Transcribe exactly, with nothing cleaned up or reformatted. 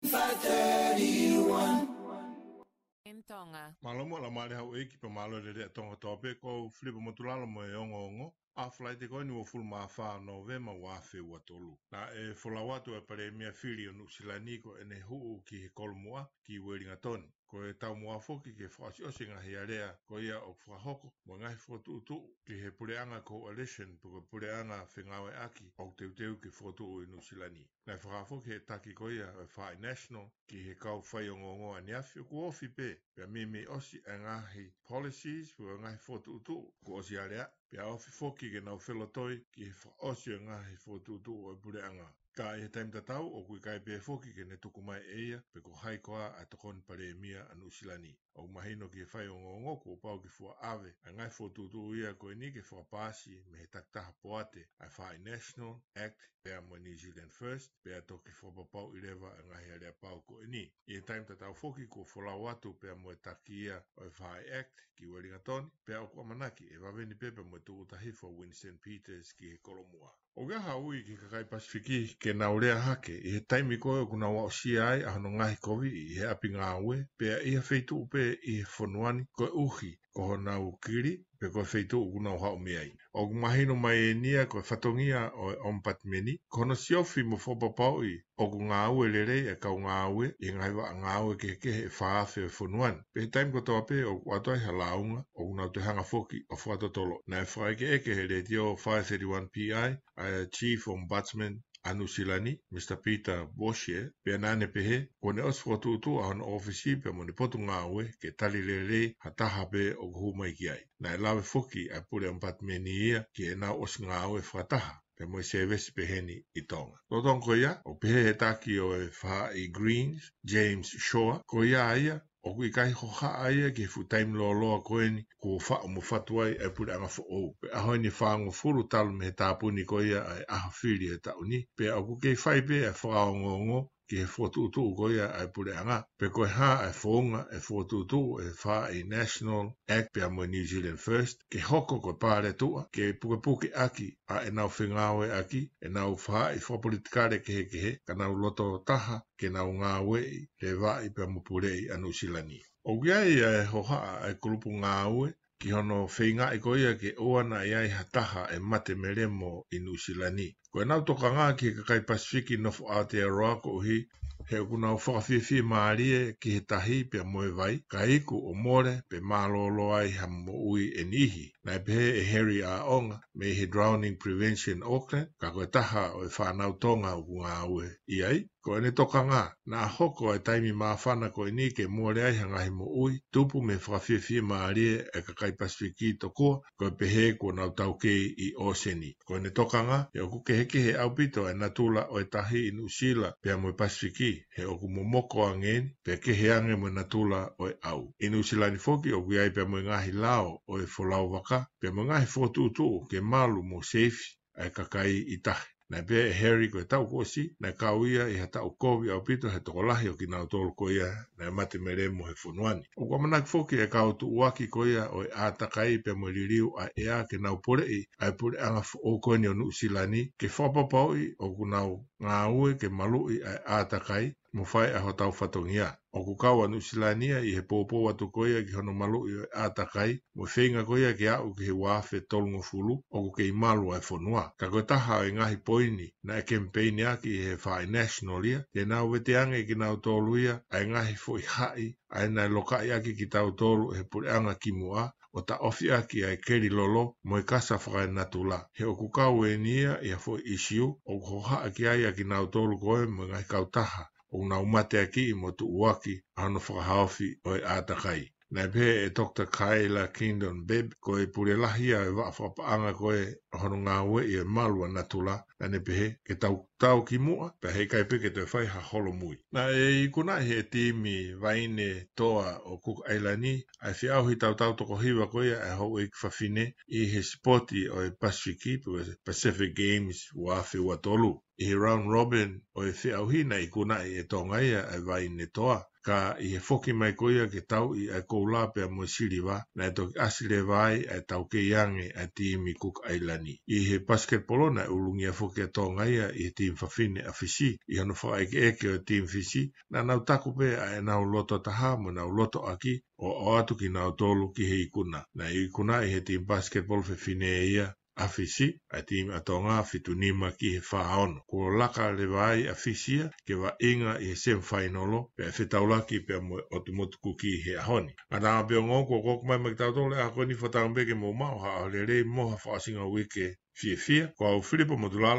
five thirty-one. M Tonga. Mālō mo e laumālie houʻeiki pea mālō e lelei ʻa Tonga kotoa pē, ko Filipa Motulalo mo e ongoongo. ʻA Falaite ko eni uofulu mā fā Nōvema ua afe ua tolu. Naʻe folau atu e Palēmia fili ʻo Nuʻusila ni ko ʻene huʻu ki he Kolomuʻa ki Uelingatoni. Ko e taumuʻa foki ke fakaʻosiʻosi e ngaahi alea ko ia ʻoku fakahoko mo e ngaahi fokotuʻutuʻu ki he puleʻanga coalition pe ko e puleʻanga fengāueʻaki ʻoku teuteu ke fokotuʻu ʻi Nuʻusila ni. Naʻe fakahā foki ʻe he taki ko ia ʻo e Faaʻi National ki he kau faiongoongo ʻaneafi ʻoku ofi pē, pea meimei ʻosi e ngaahi policies pe ko e ngaahi fokotuʻutuʻu kuo ʻosi alea, pea ofi foki ke nau felotoi ki he fakaʻosi ʻo e ngaahi fokotuʻutuʻu ʻo e puleʻanga. Ka ʻi he taimi tatau, ʻoku ʻikai pē foki ke ne tuku mai ʻe ia pe ko hai koā ʻa e tokoni Palēmia ʻa Nuʻusila ni. ʻOku mahino ki he faiongoongo kuo pau ke fua ʻave ʻa e ngaahi fokotuʻutuʻu ia ko eni ke fakapaasi mei he takitaha poate ʻa e Faaʻi National, ACT, pea mo e New Zealand First, pea toki fakapapauʻi leva e ngaahi aleapau ko eni. ʻI he taimi tatau foki kuo folau atu pea mo e taki ia ʻo e Faaʻi ACT ki Uelingatoni, pea ʻoku ʻamanaki ʻe vave ni pē pea mo e tūʻuta hifo ʻa Winston Peters ki he Kolomuʻa. ʻOku ʻi ai ha ui ki he kakai Pasifiki ke nau lea hake ʻi he taimi ko ē ʻoku nau aʻusia ai ʻa hono ngaohikoviʻi ʻi he ʻapi ngāue, pea ʻi ha feituʻu pē ʻi he fonua ni koeʻuhi ko honau kili pe ko e feituʻu ʻoku nau haʻu mei ai. ʻOku mahino mai eni ia ko e fatongia ʻo e ʻOmipatimeni, ko hono siofi mo fakapapauʻi ʻoku ngāue lelei e kau ngāue ʻi he ngaahi vaʻa ngāue kehekehe ʻe fā afe ʻo e fonua ni. Pea ʻi he taimi kotoa pē ʻoku ʻoatu ai ha lāunga, ʻoku nau toe hanga foki ʻo fakatotolo. Naʻe fakaʻekeʻeke ʻe he Letiō five thirty-one P I ʻa e Chief Ombudsman ʻa Nuʻusila ni, Mr Peter Boshier, pea naʻa ne pehē kuo ne ʻosi fokotuʻutuʻu ʻa hono ʻōfisi pea mo ʻene potungāue ke tali lelei ha taha pē ʻoku hū mai ki ai. Naʻe lave foki ʻa e pule ʻOmipatimeni ia ki heʻenau ʻosi ngāue fakataha pea mo e sēvesi peheni ʻi Tonga. Lolotonga ko ia, ʻoku pehē ʻe he taki ʻo e Faaʻi Greens, James Shaw, ko ia ia ʻoku ʻikai hohaʻa ia ki he fuʻu taimi lōloa ko eni kuo faʻu mo fatu ai e puleʻanga foʻou. Pea ʻaho eni ʻe fāngofulu talu mei he tāpuni ko ia ʻa e ʻaho fili ʻo e taʻu ni, pea ʻoku kei fai pē ʻa e fakaongoongo ki he fokotuʻutuʻu ko ia ʻa e puleʻanga, pe ko e hā ʻa e founga ʻe fokotuʻutuʻu ʻe he Faaʻi National, ACT pea mo e New Zealand First, ke hoko ko e paletuʻa ke pukepuke ʻaki ʻa ʻenau fengāueʻaki ʻenau faaʻi fakapolitikale kehekehe, ka nau loto taha ke nau ngāueʻi, levaʻi pea mo puleʻi ʻa Nuʻusila ni. ʻOku ʻi ai ʻa e hohaʻa ʻa e kulupu ngāue ki hono feingaʻi ko ia ke ʻoua naʻa ʻi ai ha taha ʻe mate melemo ʻi Nuʻusila ni. Ko ʻenau tokanga ki he kakai Pasifiki nofo Aotearoa koeʻuhi he ʻoku nau fakafiefia mālie ki he tahi pea mo e vai, ka iku ʻo mole pe mālōlō ai ha moʻui ʻe niʻihi. Naʻe pehē ʻe Harry ʻAʻonga mei he Drowning Prevention Auckland, ka ko e taha ʻo e fānau Tonga ʻoku ngāue ʻi ai, ko ʻene tokanga, naʻa hoko e taimi māfana ko eni ke mole ai ha ngaahi moʻui tupu mei he fakafiefia mālie e kakai Pasifiki tokua ko e pehē kuo nau taukei ʻi ʻōseni. Ko ʻene tokanga, he ʻoku kehekehe ʻaupito e natula ʻo e tahi ʻi Nuʻusila pea mo e Pasifiki, he ʻoku momoko ange eni, pea kehe ange mo e natula ʻo e ʻau. ʻI Nuʻusila ni foki ʻoku ʻi ai pea mo e ngaahi lao ʻo e folau vaka, pea mo e ngaahi fokotuʻutuʻu ke malu mo seifi ʻa e kakai ʻi tahi. Naʻe pehē ʻe Harry ko e taʻu kuo ʻosi, naʻe kau ia ʻi ha taʻu kovi ʻaupito he tokolahi ʻo kinautolu ko ia naʻe mate melemo he fonua ni. ʻOku ʻamanaki foki e kau tuʻuaki ko ia ʻo e ʻātakai pea mo e liliu ʻa e ʻea ke nau poleʻi ʻa e puleʻanga foʻou ko eni ʻo Nuʻusila ni ke fakapapauʻi ʻoku nau ngāue ke maluʻi ʻa e ʻātakai mo fai ʻa hotau fatongia. ʻOku kau ʻa Nuʻusila ni ia ʻi he poupou atu ko ia ki hono maluʻi ʻo e ʻātakai, mo e feinga ko ia ke aʻu ki he ua afe tolungofulu ʻoku kei malu ʻa e fonua. Ka ko e taha ʻo e ngaahi poini naʻe kemipeini ʻaki ʻe he Faaʻi National ia, te nau vete ange kinautolu ia ʻa e ngaahi foʻi haʻi ʻa ia naʻe lokaʻi ʻaki kitautolu ʻe he puleʻanga kimuʻa, ʻo taʻofi ʻaki ʻa e keli lolo mo e kasa fakaenatula. He ʻoku kau eni ia ʻi ha foʻi ʻisiū ʻoku hohaʻa ki ai ʻa kinautolu ko ē mo e ngaahi kautaha ʻoku nau mateakiʻi mo tuʻuaki ʻa hono fakahaofi ʻo e ʻātakai. Naʻe pehē ʻe Doctor Kayla Kingdon Bebb, ko e pule lahi ia ʻo e vaʻa fakapaʻanga ko ē ʻo hono ngāueʻi e malu ʻa natula, naʻa ne pehē ke tau tau ki muʻa, pea heʻikai pē ke toe fai ha holomui. Naʻe ikunaʻi ʻe he timi vaine toa ʻo Cook Island ʻa e feʻauhi tautau toko hiva ko ia ʻa e houʻeiki fafine ʻi he sipoti ʻo e Pasifiki, pe ko e Pacific Games ua afe ua tolu. ʻI he round robin ʻo e feʻauhi naʻe ikunaʻi ʻe Tonga ia ʻa e vaine toa, Ka ʻi he foki mai ko ia ke tauʻi ʻa e koula pea mo e siliva, naʻe toki ʻasi leva ai ʻa e taukei ange ʻa e timi Kuka ʻAilani. ʻI he pasiketipolo naʻe ʻulungia foki ʻa Tonga ia ʻi he timi fafine ʻa Fisi, ʻi hono fakaʻekeʻeke ʻo e timi Fisi, naʻa nau taku pē ʻa ʻenau loto taha mo ʻenau loto ʻaki ʻo ʻoatu kinautolu ki he ikuna. Naʻe ikunaʻi ʻe he timi pasiketipolo fefine ia ʻa Fisi ʻa e timi ʻa Tonga, fitu nima ki he fā ono. Kuo laka leva ai ʻa Fisi ia ke vaʻinga ʻi he semifainolo, pea fetaulaki pea mo e ʻOtu Motu Kuki he ʻaho ni. Ngata ā pē ongo, kuo koko mai maʻa kitautolu ʻa e ako ni. Fakatauange pē ke mou maʻu ha ʻaho lelei mo ha fakaʻosinga uike fiefia. Ko au Filipo Motulalo.